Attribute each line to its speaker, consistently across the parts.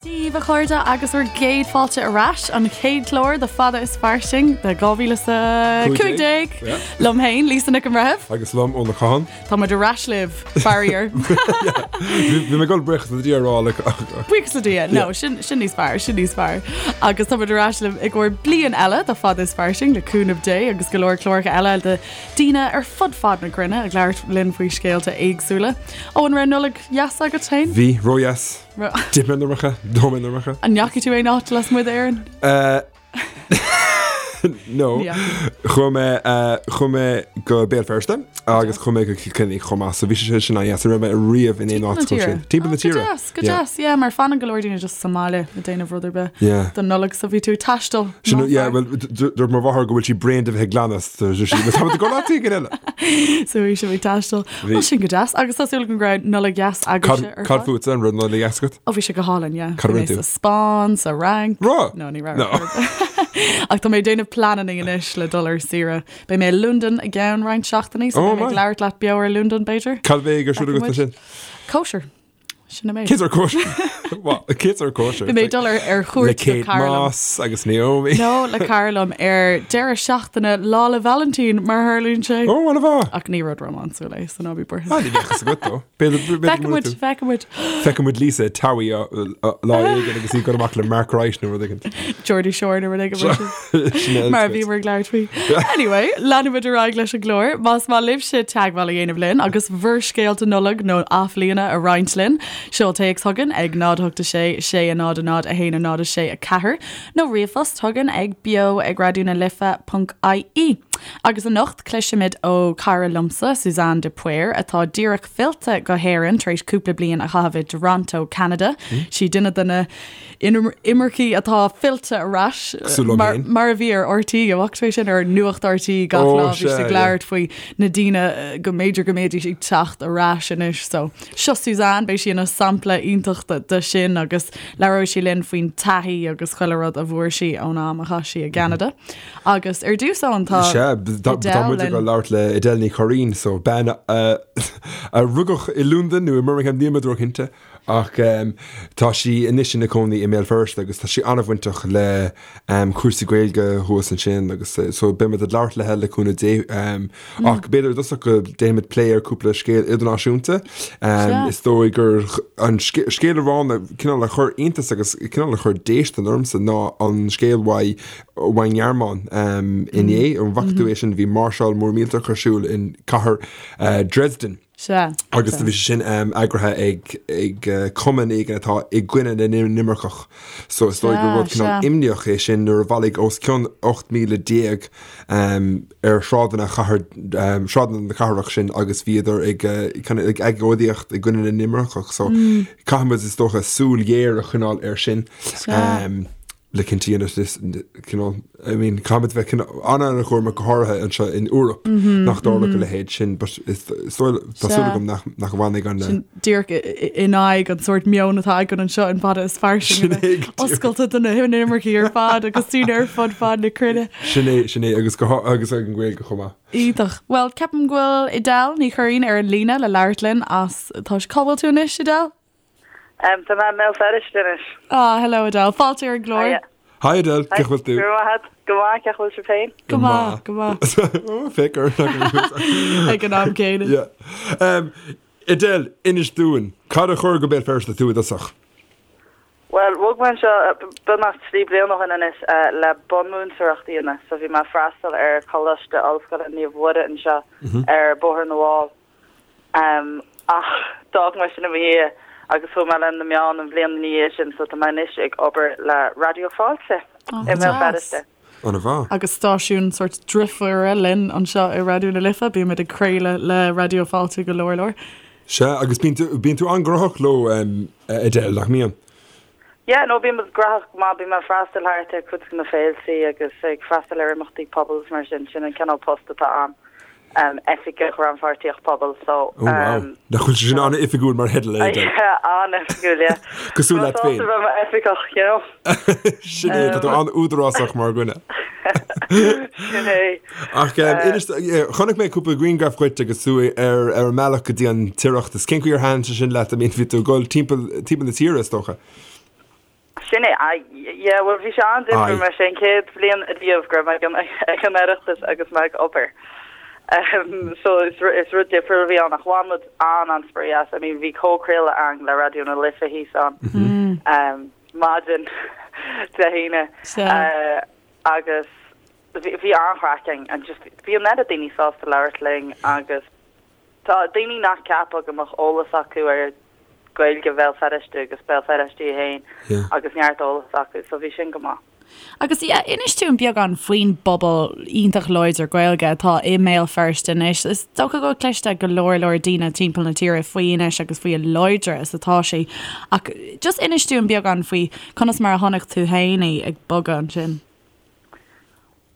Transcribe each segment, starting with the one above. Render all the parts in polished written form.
Speaker 1: Dia daoibh a chairde agus bhur gcéad fáilte ar ais, an chéad chlár de Fada is Fairsing de 2015 liom féin, Lisa Nic an Bhreithimh.
Speaker 2: Agus liom, Eoin Ó Catháin.
Speaker 1: Tá muid ar ais libh, faraor.
Speaker 2: Bhí mé ag dul buíochas le Dia a rá le.
Speaker 1: Buíochas le Dia, no, sin sin níos fearr, sin níos fearr. Agus tá muid ar ais libh i gcomhair bliain eile de Fada is Fairsing le cúnamh Dé agus go leor cláracha eile de daoine ar fud fad na cruinne ag labhairt linn faoi scéalta éagsúla. Ó an raibh Nollaig dheas agat féin?
Speaker 2: Bhí, ródheas. D'ith mé an iomarca, d'ól mé an iomarca.
Speaker 1: An ndeachaigh tú aon áit lasmuigh d'Éirinn?
Speaker 2: No. Chuaigh mé chuaigh mé go Béal Feirste agus chuaigh mé go Cill Chainnigh chomh maith, so bhí sé sin an-dheas. Ní raibh mé riamh in aon áit chomh sin. Timpeall na
Speaker 1: tíre. Go deas, go deas, yeah, mar fanann go leor daoine just sa mbaile ag déanamh rud ar bith don Nollaig, so bhí tú ag taisteal.
Speaker 2: Sin, yeah, well, dúirt mo mháthair go bhfuil sí bréan de bheith ag glanadh, so sí, tá muid ag dul áit éigin
Speaker 1: eile. So bhí sibh ag taisteal. Bhí. Sin go deas. Agus tá súil agam go raibh Nollaig dheas agaibhse
Speaker 2: ar fad. Cad fútsa, an raibh Nollaig dheas agat?
Speaker 1: Ó bhí sé go hálainn, yeah. Cad a rinne tú? Sa Spáinn, sa Fhrainc.
Speaker 2: Raibh?
Speaker 1: No, ní raibh. No. Ach tá mé ag déanamh pleananna anois le dul ar saoire. Beidh mé i Londain i gceann roinnt seachtainí, so beidh mé ag labhairt leat beo ar Londain, b'fhéidir.
Speaker 2: Cad a bheidh ar siúl agat ansin?
Speaker 1: Cóisir. Sin an méid.
Speaker 2: Cén sórt cóisir? Cén sórt cóisir?
Speaker 1: Bhí mé ag dul ar ar
Speaker 2: chuairt Le Kate cara liom. Moss agus Naomi.
Speaker 1: No, le cara liom ar deireadh seachtaine Lá 'le Vailintín, mar a tharlaíonn sé.
Speaker 2: Ó, an-mhaith.
Speaker 1: Ach ní rud rómánsúil é, so ná bí
Speaker 2: buartha. Ah, ní bheadh fhios agat dó. B'fhéidir b'fhéidir go
Speaker 1: Feicfidh muid, feicfidh muid.
Speaker 2: Feicfidh muid Lisa i Towie lá éigin agus í ag dul amach le Mark Wright nó rud éigin.
Speaker 1: Geordie Shore nó rud éigin mar sin. Mar a bhíomar ag labhairt faoi. Anyway, leanfaimid ar aghaidh leis an gclár. Más maith libhse teagmháil a dhéanamh linn agus bhur scéalta Nollag nó Athbhliana a roinnt linn, seol téacs chugainn ag 0 8 6 6 0 0 1 0 6 4 nó ríomhphost chugainn ag beo ag raidió na life ponc ie. Agus anocht cloisfimid ó cara liomsa, Suzanne de Paor, atá díreach fillte go hÉirinn tar éis cúpla bliain a chaitheamh i dToronto, Ceanada. Sí duine de na imircigh atá fillte ar ais mar a bhí ar RTÉ, an bhfaca tú é sin ar Nuacht RTÉ gach lá bhí siad ag labhairt faoi na daoine go mb'fhéidir go mbeidís ag teacht ar ais anois. So seo Suzanne, beidh sí ina sampla iontach de sin agus labhróidh sí linn faoin taithí agus chuile rud a bhfuair sí ón am a chaith sí i gCeanada. Agus ar dtús Eoin
Speaker 2: tá Sea, tá muid ag labhairt le Edel Ní Churraoin, so bean a rugadh i Londain nó i mBirmingham, níl mé róchinnte, Ach tá sí anois ina cónaí i mBéal Feirste agus tá sí an-bhainteach le cúrsaí Gaeilge thuas ansin agus so beidh muid ag labhairt léi le cúnamh Dé. Ach b'fhéidir i dtosach go ndéanfaimid plé ar cúpla scéal idirnáisiúnta. Is dóigh gur an scéal amháin a cineál a chuir iontas agus cineál a chuir déistin ormsa ná an scéal uaidh ón nGearmáin inné. An bhfaca tú é sin? Bhí máirseáil mór millteach ar siúl in cathair Dresden.
Speaker 1: Sea.
Speaker 2: Agus do bhí sé sin eagraithe ag ag cumann éigin atá i gcoinne na n-inimirceach. So is dóigh gur rud cineál imníoch é sin nuair a bhailigh os cionn 18,000 ar shráideanna chathair sráideanna na cathrach sin agus bhíodar ag kind of ag agóidíocht i gcoinne na n-inimirceach. So caithfidh muid is dócha súil ghéar a choinneáil air sin.
Speaker 1: Sea.
Speaker 2: Le cinnte a dhéanamh cineál, I mean, caithfimid bheith cineál an-an-chúramach go háirithe anseo in Eoraip nach dtarlódh a leithéid sin, but is dóigh, tá súil agam nach nach bhfanfaidh an.
Speaker 1: Sin díreach in aghaidh an sórt meon atá againn anseo in Fada is Fairsing a bheith oscailte do na hinimircigh ar fad agus daoine ar fud fad na cruinne.
Speaker 2: Sin é, sin é, agus go agus ag an Ghaeilge chomh maith.
Speaker 1: Iontach. Bhuel, ceapaim go bhfuil Edel Ní Churraoin ar an líne le labhairt linn as, tá, cá bhfuil tú anois, Edel?
Speaker 3: Tá mé i mBéal Feirste anois.
Speaker 1: Ah, hello Edel. Fáilte ar an gclár.
Speaker 3: Hiya.
Speaker 2: Hi Edel, cén chaoi bhfuil tú?
Speaker 3: Go raibh maith agat. Go maith, cén chaoi bhfuil sibh féin?
Speaker 1: Go maith, go maith.
Speaker 2: Oh, féach ar
Speaker 1: Ag an am céanna.
Speaker 2: Yeah. Um, Edel, inis dúinn, cad a chuir go Béal Feirste tú i dtosach?
Speaker 3: Bhuel, bhog mé anseo beagnach 3 bliana ó shin anois le bunmhúinteoireacht a dhéanamh. So bhí mé ag freastal ar Choláiste Ollscoile Naomh Mhuire anseo ar Bhóthar na bhFál. Ach d'fhág mé sin i mo dhiaidh agus chuaigh mé le na meáin an bhliain ina dhiaidh sin so tá mé anois ag obair le Raidió Fáilte i
Speaker 1: mBéal
Speaker 3: Feirste.
Speaker 2: An-mhaith.
Speaker 1: Agus stáisiún sórt driofúra linn anseo i Raidió na Life, bímid ag craoladh le Raidió Fáilte go leor leor.
Speaker 2: Sea, agus bíonn tú, bíonn tú an-ghnóthach leo, Edel, nach mbíonn?
Speaker 3: Yeah, no, bíonn muid gnóthach go maith, bíonn mé ag freastal thart ar cuid de na féiltí agus ag freastal ar imeachtaí pobail is mar sin, sin an cineál post atá a'm. Oifigeach Rannpháirtíocht Pobail so.
Speaker 2: Oh wow. Nach bhfuil sé sin an-oifigiúil mar theideal é Edel?
Speaker 3: Yeah, an-oifigiúil, yeah.
Speaker 2: Cosúil leat féin.
Speaker 3: Tá mé sásta bheith i m'oifigeach, you know.
Speaker 2: Sin é, tá tú an-údarásach mar dhuine.
Speaker 3: Sin é.
Speaker 2: Ach inis, chonaic mé cúpla grianghraf dhuit agus tú ar ar an mbealach go dtí an tOireachtas. Cén chaoi ar thaitin sé sin leat? I mean, bhí tú ag dul timpeall timpeall na tíre, is dócha.
Speaker 3: Sin é, aye, yeah, bhuel bhí sé an-difriúil mar is é an chéad bhliain ariamh go raibh mé ag an ag an Oireachtas agus mé ag obair. Um, so is is rud difriúil a bhí ann ach bhain muid an-an-spraoi as. I mean bhí comhchraoladh againn le Raidió na Life thíos ann um, maidin Dé hAoine uh, agus bhí bhí an-chraic againn and just bhí an oiread daoine sásta labhairt linn agus Tá daoine nach gceapfá go mbeadh eolas acu ar Gaeilge Bhéal Feirste agus Béal Feirste í fhéin agus neart eolas acu, so bhí sin go maith.
Speaker 1: Agus yeah, inis dúinn beagán faoin bpobal iontach láidir Gaeilge atá i mBéal Feirste anois. Is dócha go bhfuil cloiste ag go leor leor daoine timpeall na tíre faoi anois agus faoi a láidre is atá sé. Ach just inis dúinn beagán faoi conas mar a chonaic tú féin í ag bogadh ansin.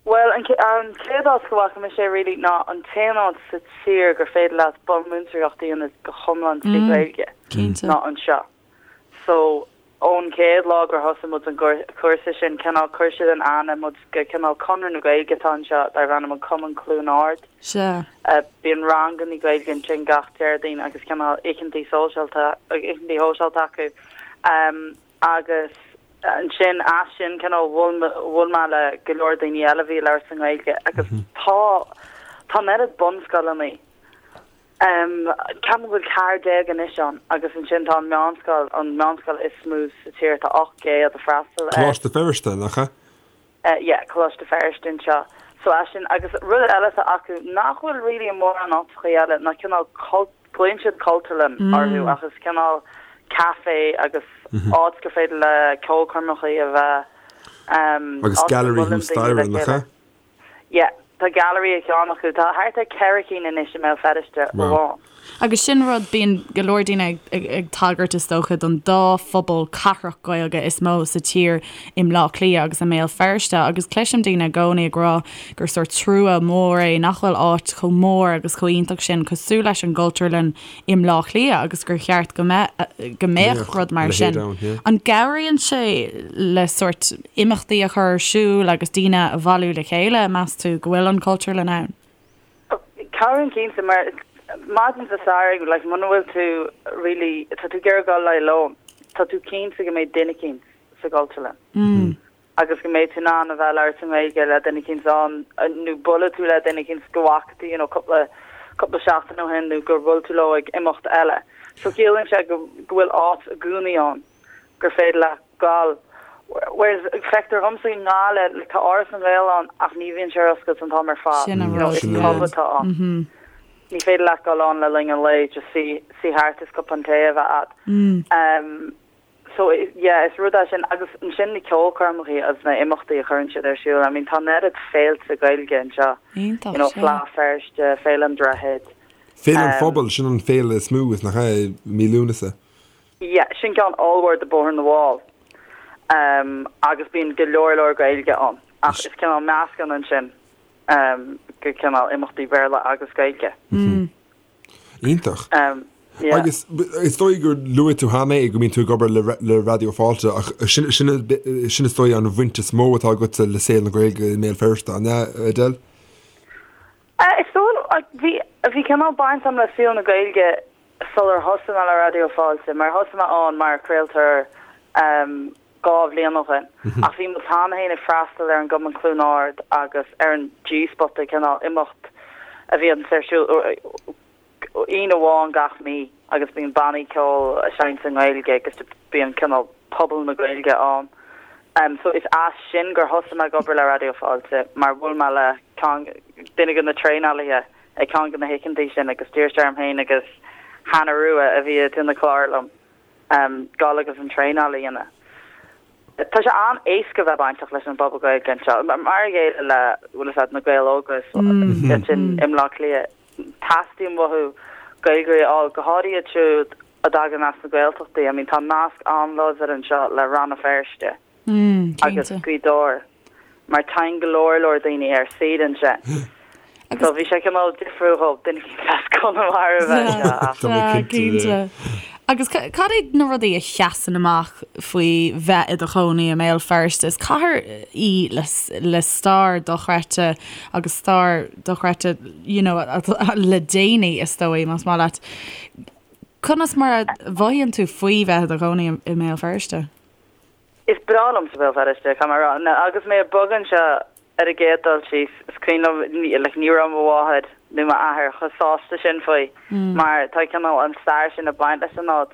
Speaker 3: Bhuel, an chéad áit go bhfaca mise é really ná an t-aon áit sa tír gur féidir leat bunmhúinteoireacht a dhéanamh go hiomlán trí Ghaeilge ná anseo. So, ón chéad lá gur thosaigh muid an cúrsa sin, cineál chuir siad in aithne muid go cineál Conradh na Gaeilge atá anseo darb ainm an Cumann Cluain Ard. Bíonn rangannaí Gaeilge ansin gach Déardaoin agus cineál oícheantaí sóisialta, oícheantaí shóisialta acu. Agus ansin, as sin, cineál, bhuail, bhuail mé le go leor daoine eile a bhí ag labhairt sa nGaeilge agus tá, tá an oiread bunscoileanna, em, ceapaim go bhfuil 14 anois ann agus ansin tá an meánscoil, an meánscoil is mó sa tír, tá 800 ag freastal
Speaker 2: air. Coláiste Feirste, nach ea?
Speaker 3: Yeah, Coláiste Feirste anseo. So as sin, agus rud eile atá acu nach bhfuil really i mórán áiteachaí eile ná cineál cult, glaonn siad cultúrlann orthu ach is cineál café agus áit gur féidir le ceolchoirmeachaí a bheith,
Speaker 2: Agus áit go gallery mbuaileann thuas daoine staighre, le nach
Speaker 3: ea? chéile. Yeah, tá gallery ag ceann acu. Tá thart ar 4 cinn anois i mBéal Feirste
Speaker 1: amháin. Agus sin rud, bíonn go leor daoine ag tagairt is dócha don dá phobal cathrach Gaeilge is mó sa tír i mBleá Cliath agus i mBéal Feirste agus cloisim daoine i gcónaí ag rá gur sórt trua mór é nach bhfuil áit chomh mór agus chomh iontach sin cosúil leis an gCultúrlann i mBleá Cliath agus gur cheart go mbeadh go mbeadh rud mar sin. An gcabhraíonn sé le sórt imeachtaí a chur ar siúl agus daoine a bhailiú le chéile, meas tú, go bhfuil an Cultúrlann ann?
Speaker 3: Cabhraíonn cinnte mar maidin Dé Sathairn like muna bhfuil tú really tá tú ag iarraidh dul le lón tá tú cinnte go mbeidh duine eicínt sa gCultúrlann agus go mbeidh tú in ann a bheith ag labhairt i nGaeilge le duine eicínt ann nó bualadh tú le duine eicínt go bhfaca tú you know cúpla cúpla seachtain ó shin nó gur bhuail tú leo ag imeacht eile. So ciallaíonn sé go go bhfuil áit i gcónaí ann gur féidir leat gabháil whereas feictear dhomsa i nGaillimh like tá Áras na nGael ann ach ní bhíonn sé ar oscailt an t-am ar fad
Speaker 1: Sin an you know
Speaker 3: rud, is yeah. pub atá ann. Ní féidir leat dul ann le linn an lae just suí suí thart is cupán tae a bheith a'd. Um so yeah is rud é sin agus ansin na ceolchoirmeacha agus na imeachtaí a chuireann siad ar siúl I mean tá an oiread féilte Gaeilge anseo
Speaker 1: Iontach,
Speaker 3: you know
Speaker 1: sea.
Speaker 3: Fleadh Feirste, Féile an Droichid.
Speaker 2: Féile an um Phobail, sin an féile is mó is nach ea i mí Lúnasa.
Speaker 3: Yeah, sin ceann ollmhór do Bóthar na bhFál um agus bíonn go leor leor Gaeilge ann ach is cineál meascán ansin um go cineál imeachtaí Béarla agus Gaeilge.
Speaker 2: Iontach. Um yeah. Agus is dóigh gur luaigh tú cheana é go mbíonn tú ag obair le le Raidió Fáilte ach sin sin sin is dóigh an bhaint is mó atá agatsa le saol na Gaeilge i mBéal Feirste, an ea, Edel?
Speaker 3: Is dóigh bhí bhí cineál baint agam le saol na Gaeilge sular thosaigh mé le Raidió Fáilte, mar thosaigh mé ann mar chraoltóir 2 bhliain ó shin, ach bhí muid cheana féin ag freastal ar an gCumann Cluain Ard agus ar an G-Spota, cineál imeacht a bhíonns ar siúl Aoine amháin gach mí agus bíonn bannaí ceoil ag seinnt i nGaeilge agus bíonn cineál pobal na Gaeilge ann. So is as sin gur thosaigh mé ag obair le Raidió Fáilte mar bhuail mé le ceann, duine de na traenálaithe ag ceann de na hoícheantaí sin agus d'iarr sé orm féin agus Hannah Rua, a bhí ag déanamh clár liom, dul agus an traenáil a dhéanamh. Tá sé an-éasca bheith bainteach leis an bpobal Gaeilge anseo, mar a chéile le, bhfuil a fhios agat, na Gaeil Óga ansin i mBleá Cliath. Teastaíonn uathu Gaeilgeoirí a fháil, go háirithe iad siúd a dtagann as na Gaeltachtaí. I mean, tá nasc an-láidir anseo le Rann na Feirste. agus Gaoth Dobhair mar téann go leor leor daoine ar saoire ansin. So bhí sé cineál difriúil dhóibh duine éicint as Conamara a bheith anseo
Speaker 1: ach. Tá mé cinnte. Agus cad iad na rudaí a sheasann amach faoi bheith i do chónaí i mBéal Feirste? Is cathair í le stair dochreidte agus stair dochreidte you know le déanaí is dóigh, más maith leat. Conas mar a mhothaíonn tú faoi bheith i do chónaí i mBéal Feirste?
Speaker 3: Is breá liomsa Béal Feirste, caithfidh mé a rá. Agus mé ag bogadh anseo ar an gcéad dul síos, is cuimhin liom, like, ní raibh mo mháthair nó m'athair chomh sásta sin faoi mar tá cineál an stair sin ag baint leis an áit.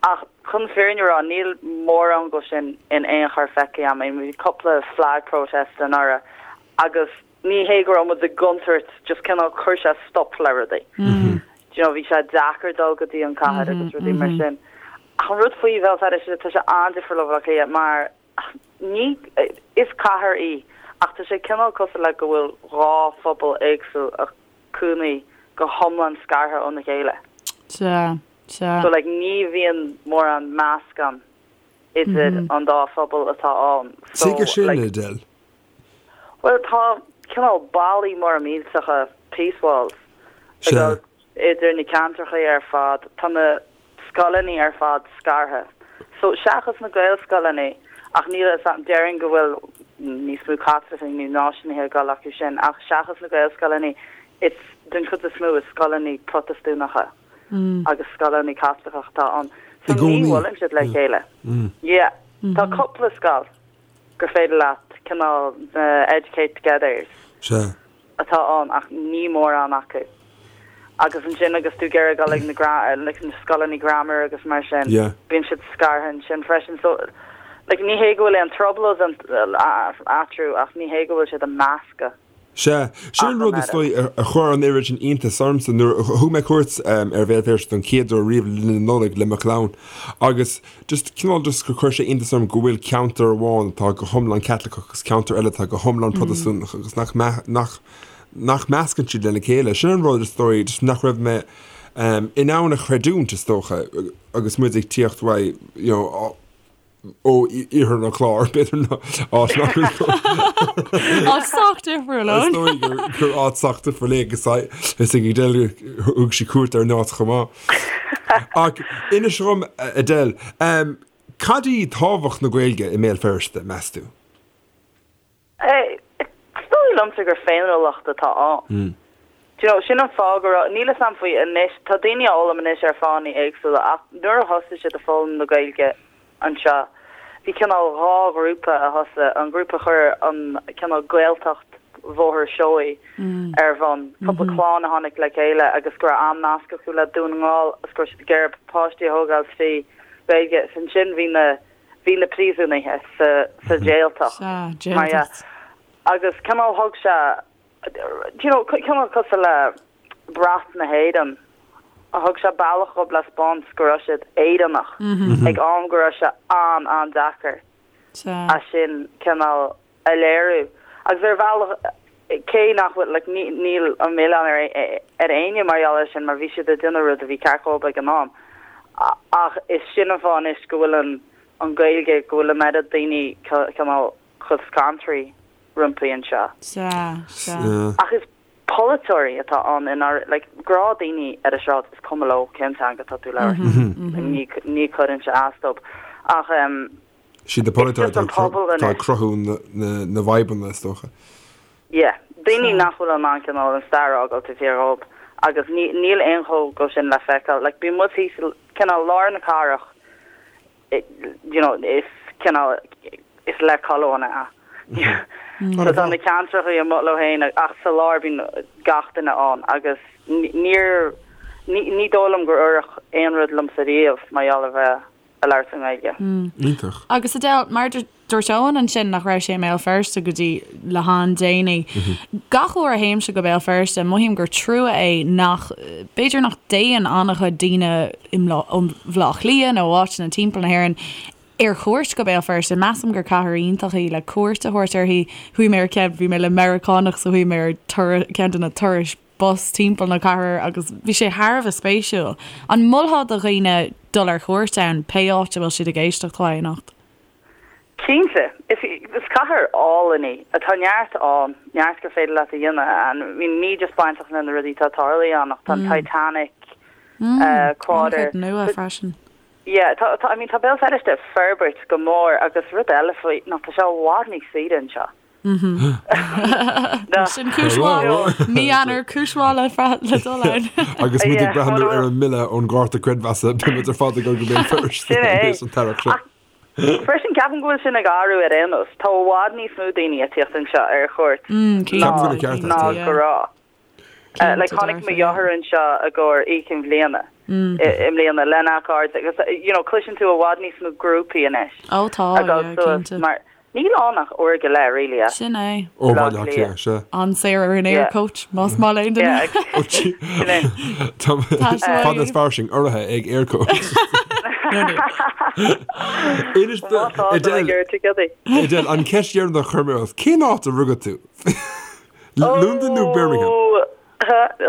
Speaker 3: Ach chun an fhírinne a rá, níl mórán de sin in aon chor feicthe agam. I mean, bhí cúpla flag protest anuraidh agus ní hé go raibh muid i gcontúirt, just cineál chuir sé stop le rudaí. Do you know, bhí sé deacair dul go dtí an cathair agus rudaí mar sin. Ach an rud faoi Bhéal Feirste, tá sé an-difriúil ó Bhaile Átha Cliath mar ní, is cathair í ach tá sé cineál cosúil le go bhfuil dhá phobal éagsúil ag cónaí go hiomlán scartha óna chéile.
Speaker 1: Sea, sea.
Speaker 3: So like ní bhíonn mórán meascán idir an dá phobal atá ann.
Speaker 2: So Tuige sin, like, Edel?
Speaker 3: Bhuel tá cineál ballaí móra millteacha, peace walls, ag dul idir na ceantracha ar fad. Tá na scoileanna ar fad scartha. So seachas na Gaelscoileanna, ach níl a fhios a'm, déarfainn go bhfuil níos mó Caitlicigh nó náisiúnaithe ag dul acu sin, ach seachas na Gaelscoileanna, it's den chuid is mó is scoileanna Protastúnacha agus scoileanna Caitliceacha atá ann. So ní bhuaileann siad le chéile. Yeah. Tá cúpla scoil gur féidir leat cineál na Educate Togethers.
Speaker 2: Sea.
Speaker 3: atá ann ach ní mórán acu. Agus ansin agus tú ag iarraidh dul ag na like na scoileanna grammar agus mar sin,
Speaker 2: Yeah.
Speaker 3: bíonn siad scartha ansin freisin. So like ní hé go bhfuil aon trioblóid eatarthu ach ní hé go bhfuil siad ag meascadh
Speaker 2: Sea, sin an rud is dóigh a chuir an oiread sin iontais ormsa nuair a thug mé cuairt ar Bhéal Feirste don chéad uair riamh le linn na Nollag le mo chlann agus just cineál just gur chuir sé iontas orm go bhfuil ceantar amháin atá go hiomlán Caitliceach agus ceantar eile atá go hiomlán Protastúnach agus nach nach nach meascann siad lena chéile. Sin an rud is dóigh just nach raibh mé in ann a chreidiúint is dócha agus muid ag tíocht uaidh you know ó iarthar an Chláir, b'fhéidir ná áit nach
Speaker 1: bhfuil Áit sách difriúil
Speaker 2: Is dóigh gur gur áit sách difriúil é agus is ag Edel thug sí cuairt ar an áit chomh maith. Ach inis dom, Edel, cad í tábhacht na Gaeilge i mBéal Feirste, meas tú?
Speaker 3: Is dóigh liomsa gur féiniúlacht atá ann. Do you know, sin an fáth go raibh, níl 'fhios a'm faoi anois, tá daoine á fhoghlaim anois ar fáthanna éagsúla ach nuair a thosaigh siad ag foghlaim na Gaeilge anseo, bhí cineál dhá ghrúpa a thosaigh, an grúpa a chuir an cineál Gaeltacht Bhóthar Seoighe ar bhun, cúpla clann a tháinig le chéile agus go raibh an-nasc acu le Dún na nGall agus go raibh siad ag iarraidh páistí a thógáil trí Ghaeilge. Is ansin bhí na. bhí na príosúnaithe sa sa Jaeltacht
Speaker 1: Sea, mar dhea. Jaeltacht.
Speaker 3: Agus cineál thug sé, do you know, cineál cosúil le brat na hÉireann, thug sé bealach dhóibh le 'spáint go raibh siad Éireannach ag am go raibh sé an-an-deacair
Speaker 1: Sea.
Speaker 3: é sin cineál a léiriú. Agus ar bhealach, cé nach bhfuil, like, ní, níl an milleán ar, ar éinne mar gheall air sin, mar bhí siad ag déanamh rud a bhí ceart dhóibh ag an am. Ach is sin an fáth anois go bhfuil an, an Ghaeilge, go bhfuil an oiread daoine cineál chomh scanraithe roimpi anseo.
Speaker 1: Sea, sea.
Speaker 3: Ach is polaiteoirí atá ann i ndáiríre, like, gnáthdhaoine ar an sráid, is cuma leo cén teanga atá tú ag labhairt. Ní, ní chuireann sé as dóibh. Ach, em.
Speaker 2: Siad na polaiteoirí atá ag cruthú na bhfadhbanna, is dócha.
Speaker 3: Yeah. Daoine nach bhfuil in ann cineál an stair a fhágáil taobh thiar dhóibh agus níl aon chomh go sin le feiceáil. Like bíonn muid thíos i cineál lár na cathrach, you know, is cineál, is le colóin é. So tá na ceantracha amuigh leo féin ach sa lár bíonn gach duine ann agus níor, ní dóigh liom gur oirfeadh aon rud liomsa riamh mar gheall ar bheith ag labhairt i
Speaker 1: nGaeilge. Iontach. Agus Edel, mar dúirt Eoin ansin nach raibh sé i mBéal Feirste go dtí le han-déanaí. Gach uair a théimse go Béal Feirste, mothaím gur trua é nach, b'fhéidir nach dtéann an-chuid daoine ó Bhaile Átha Cliath nó ó áiteanna timpeall na hÉireann ar chuairt go Béal Feirste. Measaim gur cathair iontach í le cuairt a thabhairt uirthi. Chuaigh mé ar ceann, bhí mé le Meiriceánach so chuaigh mé ar ceann de na turais bus timpeall na cathrach agus bhí sé thar a bheith spéisiúil. An molfá do dhaoine dul ar chuairt ann, pé áit a bhfuil siad ag éisteacht uaidh anocht?
Speaker 3: Cinnte. Is is cathair álainn í. Tá neart ann, neart gur féidir leat a dhéanamh ann. I mean ní just bainteach le na rudaí atá tarlaithe ann ach tá an Titanic Quarter.
Speaker 1: An-chuid nua freisin.
Speaker 3: Yeah, tá, tá, I mean tá Béal Feirste ag forbairt go mór agus rud eile faoi ná tá sé i bhfad níos saoire anseo.
Speaker 1: Sin cúis mhaith. Mí Eanáir, cúis mhaith le dul ann.
Speaker 2: Agus muid ag breathnú ar an mbille ón gcárta creidmheasa, beidh muid ar fad ag dul go Béal Feirste
Speaker 3: an t-earrach seo. Freisin, ceapaim go bhfuil sin ag athrú ar aon nós. Tá i bhfad níos mó daoine ag tíocht anseo ar chuairt ná go raibh. Like, tháinig mo dheartháir anseo i gcomhair Oíche Chinn Bhliana i mbliana lena chairde agus, you know, cloiseann tú i bhfad níos mó grúpaí anois ag dul suas mar Níl ann ach uair go leith, really,
Speaker 1: as Sin é.
Speaker 2: Ó Bhaile Átha Cliath, sea.
Speaker 1: An-saor ar an Aircoach, más maith le aon duine.
Speaker 3: Sin é.
Speaker 2: Tá fada is fairsing urraithe ag Aircoach. Inis
Speaker 3: Má tá, tá mé ag iarraidh ticéadaí.
Speaker 2: Edel, an cheist dheireanach a chuir mé ort, cén áit a rugadh tú? Londain nó Birmingham?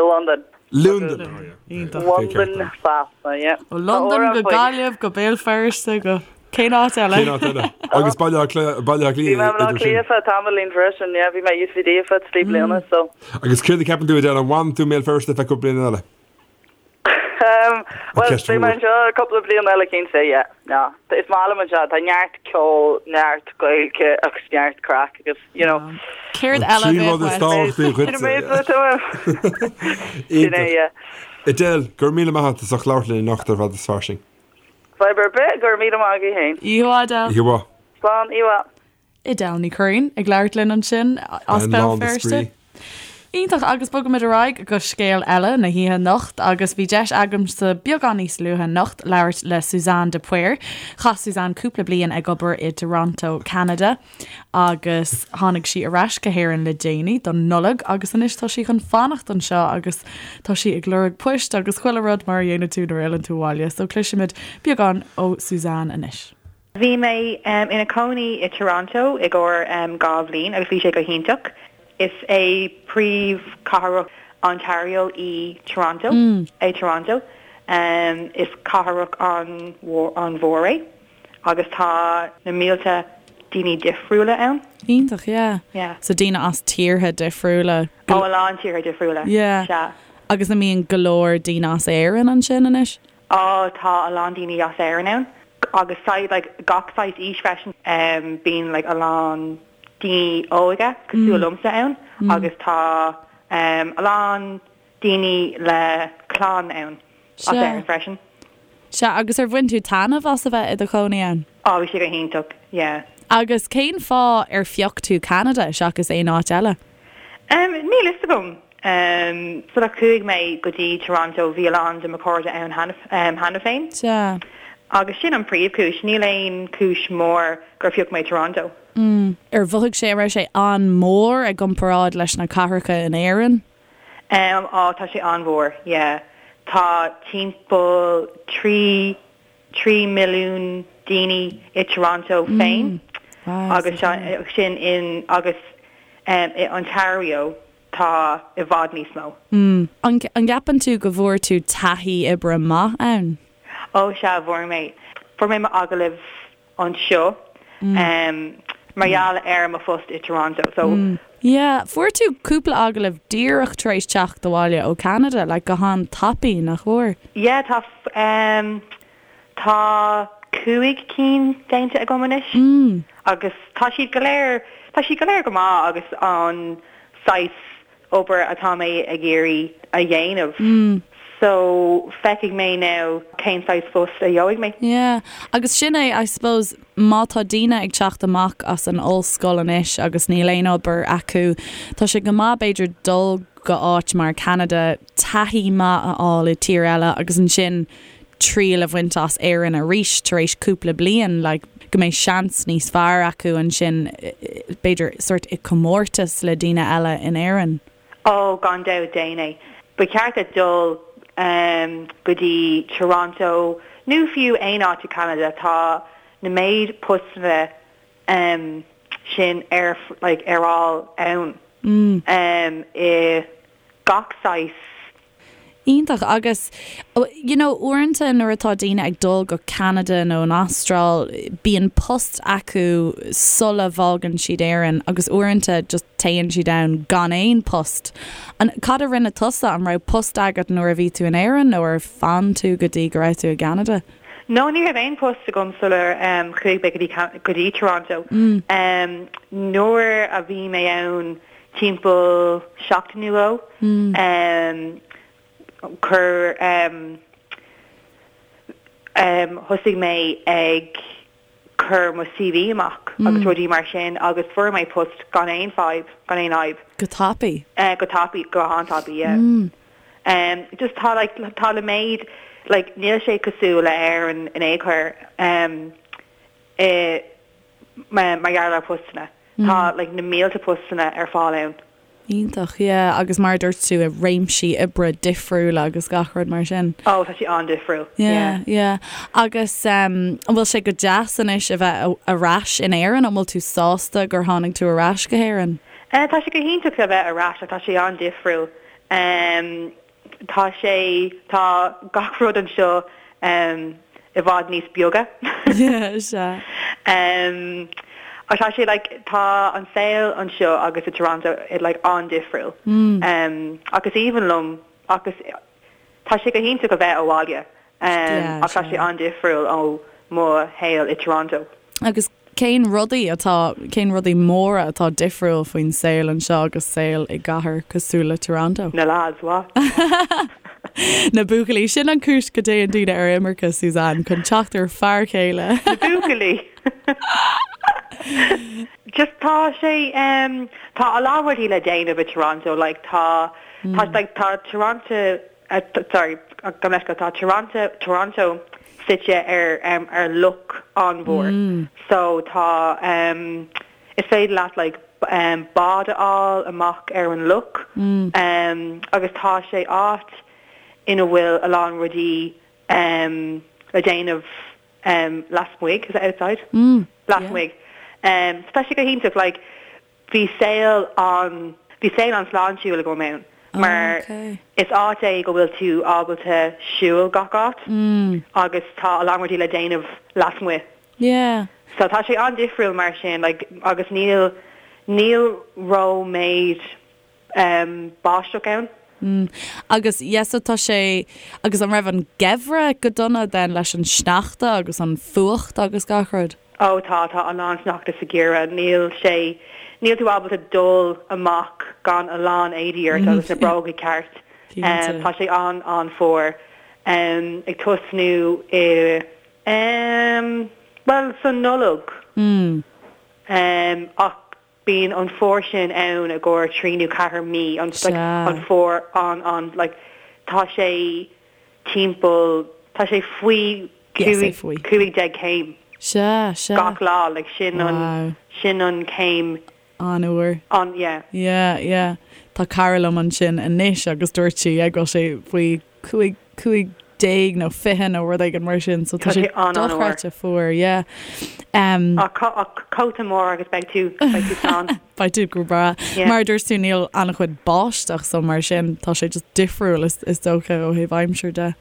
Speaker 3: Londain.
Speaker 2: Londain.
Speaker 3: Londain Sasana, yeah.
Speaker 1: Ó Londain go Gaillimh go Béal Feirste go cén áit eile?
Speaker 2: Cén áit eile? Agus Baile Átha Cliath, Baile Átha Cliath
Speaker 3: Bhí mé i mBaile Átha Cliath feadh tamaillín freisin, yeah, bhí mé i UCD ar feadh 3 bliana, so.
Speaker 2: Agus céard a ceapann tú Edel, an bhfanann tú i mBéal Feirste feadh cúpla bliain eile?
Speaker 3: Bhuel, beidh mé anseo cúpla bliain eile cinnte, yeah. No, is maith liom anseo, tá neart ceol, neart Gaeilge agus neart craic agus, you know.
Speaker 1: Céard eile a bheadh
Speaker 2: uait? Sin an méid atá uaim. Sin é, yeah. Edel, go raibh míle maith agat as ucht labhairt linn anocht ar Fada is Fairsing.
Speaker 3: Fadhb ar bith, go raibh míle maith agaibh féin.
Speaker 1: Oíche mhaith, Edel.
Speaker 2: Oíche mhaith.
Speaker 3: Slán, oíche mhaith.
Speaker 1: Edel Ní Churraoin ag labhairt linn ansin as Béal Feirste. Iontach agus bogaimid ar aghaidh go scéal eile na hoíche anocht agus bhí deis agamsa beagán níos luaithe anocht labhairt le Suzanne de Paor. Chaith Suzanne cúpla bliain ag obair i dToronto, Ceanada agus tháinig sí ar ais go hÉirinn le déanaí don Nollaig agus anois tá sí chun fanacht anseo agus tá sí ag lorg poist agus chuile rud mar a dhéanann tú nuair a fhilleann tú abhaile. So cloisfimid beagán ó Suzanne anois.
Speaker 4: Bhí mé ina cónaí i Toronto i gcomhair 2 bhliain agus bhí sé go hiontach. Is é príomhchathrach Ontario í Toronto, é Toronto. Is cathrach an-mhór é agus tá na mílte daoine difriúla ann.
Speaker 1: Iontach, yeah. Yeah. So daoine as tíortha difriúla.
Speaker 4: Ó, a lán tíortha difriúla.
Speaker 1: Yeah.
Speaker 4: Sea.
Speaker 1: Agus an mbíonn go leor daoine as Éirinn ansin anois?
Speaker 4: Á, tá a lán daoine as Éirinn ann agus saghas like gach saghas aois freisin. Bíonn like a lán daoine óga cosúil liomsa ann agus tá a lán daoine le clann ann as Éirinn freisin.
Speaker 1: Sea, agus ar bhain tú taitneamh as a bheith i do chónaí ann?
Speaker 4: Á, bhí sé go hiontach, yeah.
Speaker 1: Agus cén fáth ar phioc tú Ceanada seachas aon áit eile?
Speaker 4: Níl fhios agam.
Speaker 1: Sular
Speaker 4: chuaigh mé go dtí Toronto bhí a lán de mo chairde ann cheana féin.
Speaker 1: Sea.
Speaker 4: Agus sin an príomhchúis. Níl aon chúis mór gur phioc mé Toronto.
Speaker 1: Ar mhothaigh sé, an raibh sé an-mhór i gcomparáid leis na cathracha in Éirinn?
Speaker 4: Á, tá sé an-mhór, yeah. Tá timpeall 3 3 milliún daoine i Toronto féin agus sin in agus i Ontario tá i bhfad níos mó.
Speaker 1: An gceapann tú go bhfuair tú taithí oibre maith ann?
Speaker 4: Ó sea, bhfuair mé. Fuair mé m'agallamh anseo mar gheall ar mo phost i Toronto so.
Speaker 1: Yeah, fuair tú cúpla agallamh díreach tar éis teacht abhaile ó Ceanada, like go han-tapaidh, nach bhfuair?
Speaker 4: Yeah, tá tá 5 cinn déanta agam anois agus tá siad go léir, tá siad go léir go maith agus an saghas obair atá mé ag iarraidh a dhéanamh so feicfidh mé now cén saghas phost a gheobhaidh mé.
Speaker 1: Yeah, agus sin é, I suppose, má tá daoine ag teacht amach as an ollscoil anois agus níl aon obair acu, tá sé go maith b'fhéidir dul go áit mar Ceanada, taithí maith a fháil i tír eile agus ansin triail a bhaint as Éirinn arís tar éis cúpla bliain, like, go mbeidh seans níos fearr acu ansin, b'fhéidir, sort i comórtas le daoine eile in Éirinn.
Speaker 4: Ó, gan dabht, déan é. Ba cheart duit dul go dtí Toronto nó fiú aon áit i Canada, tá na méid postanna sin ar, like, ar fháil ann i gach saghas
Speaker 1: Iontach. Agus, you know, uaireanta nuair atá daoine ag dul go Ceanada nó an Astráil, bíonn post acu sula bhfágann siad Éirinn agus uaireanta just téann siad ann gan aon post. An, cad a rinne tusa? An raibh post agat nuair a bhí tú in Éirinn nó ar fhan tú go dtí go raibh tú i gCeanada?
Speaker 4: No, ní raibh aon post agam sular chuaigh mé go dtí, go dtí Toronto. Nuair a bhí mé ann timpeall seachtain nó dhó. Chuir thosaigh mé ag. cur mo CV amach agus rudaí mar sin agus fuair mé post gan aon fadhb, gan aon fhadhb.
Speaker 1: Go tapaidh?
Speaker 4: Go tapaidh, go han-tapaidh, yeah. Just tá like, tá le méid, like níl sé cosúil le Éirinn in aon chor i mar gheall ar postanna. Tá like na mílte postanna ar fáil ann.
Speaker 1: Iontach, yeah, agus mar a dúirt tú i réimsí oibre difriúla agus gach rud mar sin.
Speaker 4: Oh, tá sé an-difriúil,
Speaker 1: yeah. Yeah, yeah. Agus um, an bhfuil sé go deas anois a bheith ar ais in Éirinn? An bhfuil tú sásta gur tháinig tú ar ais go hÉirinn?
Speaker 4: Eh, tá sé go hiontach a bheith ar ais ach tá sé an-difriúil. Um, Tá sé, tá gach rud anseo i bhfad níos beaga.
Speaker 1: Sea.
Speaker 4: Ach tá sé like, tá an saol anseo agus i Toronto like an-difriúil. Ach is aoibhinn liom ach is, tá sé go hiontach a bheith abhaile. Ach tá sé an-difriúil ó mo shaol i Toronto.
Speaker 1: Agus cén rudaí atá, cén rudaí móra atá difriúil faoin saol anseo agus saol i gcathair cosúil le Toronto?
Speaker 4: Na lads, what?
Speaker 1: Na buachaillí, sin an cúis go dtéann daoine ar imirce, Suzanne, chun teacht ar fear céile.
Speaker 4: Na buachaillí! Just tá sé, tá a lán rudaí le déanamh i Toronto, like tá, tá, like tá Toronto, sorry, gabh mo leithscéal, tá Toronto, Toronto suite ar ar loch an-mhór so tá is féidir leat like bád a fháil amach ar an loch agus tá sé áit ina bhfuil a lán rudaí le déanamh lasmuigh, is it outside? Lasmuigh. So tá sé go hiontach like Bhí saol an, bhí saol an-sláintiúil agam ann mar is áit é go bhfuil tú ábalta siúl gach áit agus tá a lán rudaí le déanamh lasmuigh.
Speaker 1: Yeah.
Speaker 4: So tá sé an-difriúil mar sin like agus níl, níl ró-méid báisteach ann.
Speaker 1: Mm. Agus yeah so tá sé, agus an raibh an geimhreadh go dona then leis an sneachta agus an fuacht agus gach rud?
Speaker 4: Ó tá, tá a lán sneachta sa gheimhreadh. Níl sé, níl tú ábalta dul amach gan a lán éadaí ort agus na bróga ceart.
Speaker 1: Cinnte.
Speaker 4: Tá sé an, an-fhuar. Ag tosnú i, bhuel, sa Nollaig.
Speaker 1: Mm.
Speaker 4: Ach Bíonn an fuar sin ann i gcomhair trí nó ceathair mí, an like an fuar an an like tá sé timpeall tá sé faoi 15 céim
Speaker 1: Sea, sea.
Speaker 4: gach lá like sin an sin an céim
Speaker 1: An-fhuar.
Speaker 4: an yeah.
Speaker 1: Yeah, yeah. Tá cara liom ansin anois agus dúirt sí yeah go bhfuil sé faoi 15, 15 nó 20 nó rud éigin mar sin so tá sé dochreidte fuar yeah.
Speaker 4: Um, ach cóta mór agus beidh tú beidh tú slán.
Speaker 1: Beidh tú go breá. Yeah. Mar a dúirt tú níl an-chuid báisteach so mar sin tá sé just difriúil is, is dócha ó thaobh aimsir de.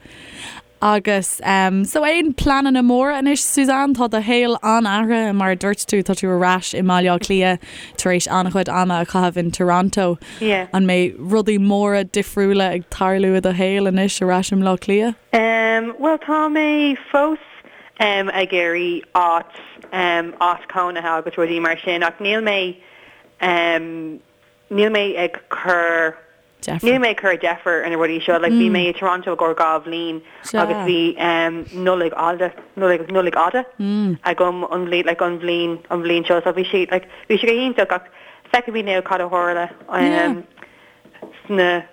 Speaker 1: Agus um, so aon pleananna móra anois Suzanne, tá do shaol an-athraithe mar a dúirt tú, tá tú ar ais i mBaile Átha Cliath tar éis an-chuid ama a chaitheamh in Toronto.
Speaker 4: Yeah.
Speaker 1: An mbeidh rudaí móra difriúla ag tarlú i do shaol anois ar ais i mBleá Cliath?
Speaker 4: Um, bhuel tá mé fós um, ag iarraidh áit, um, áit cónaithe agus rudaí mar sin ach níl mé um, níl mé ag cur
Speaker 1: Deifir.
Speaker 4: Níl mé ag cur deifir ar na rudaí seo. Like bhí mé i Toronto i gcomhair 2 bhliain agus bhí Nollaig fhada, Nollaig, Nollaig fhada agam an bhliain, like an bhliain, an bhliain seo. So bhí sé, like bhí sé go hiontach ach feicfimid now cad a tharla sna,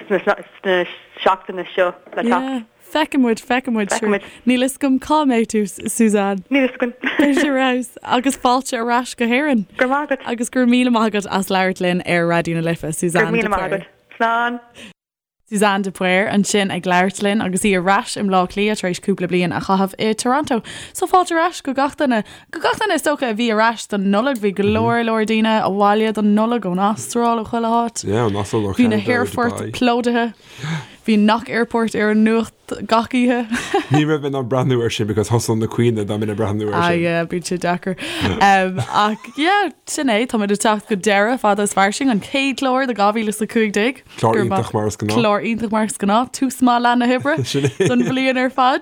Speaker 4: sna, sna seachtaine seo le teacht.
Speaker 1: Feicfidh muid, feicfidh muid.
Speaker 4: Feicfidh muid.
Speaker 1: Níl fhios agam cá mbeidh tú, Suzanne.
Speaker 4: Níl fhios againn.
Speaker 1: Beidh sé ar fheabhas. Agus fáilte ar ais go hÉirinn.
Speaker 4: Go raibh maith agat.
Speaker 1: Agus go raibh míle maith agat as labhairt linn ar Raidió na Life, Suzanne
Speaker 4: de
Speaker 1: Paor. Go raibh míle
Speaker 4: maith agat. Slán.
Speaker 1: Suzanne de Paor ansin ag labhairt linn agus í ar ais i mBleá Cliath tar éis cúpla bliain a chaitheamh i Toronto. So fáilte ar ais go gach duine, go gach duine is dócha a bhí ar ais don Nollaig. Bhí go leor leor daoine abhaile don Nollaig ón Astráil, ó chuile háit.
Speaker 2: Yeah, ón Astráil, ó
Speaker 1: Bhí na
Speaker 2: Ceanada, ó
Speaker 1: haerfoirt
Speaker 2: Dubai.
Speaker 1: plódaithe. Bhí Knock Airport ar an nuacht gach oíche.
Speaker 2: Ní raibh mé in ann breathnú air sin because thosódh na caoineadh dá mbeinn ag breathnú air
Speaker 1: Ah
Speaker 2: sin.
Speaker 1: yeah, bíonn sé deacair. Um, ach yeah, sin é, táimid ag teacht go deireadh fada is fairsing, an chéad chlár de 2015.
Speaker 2: Clár iontach mar is gnáth.
Speaker 1: Clár iontach mar is gnáth, tús maith lá na hoibre
Speaker 2: Sin é.
Speaker 1: don bhliain ar fad.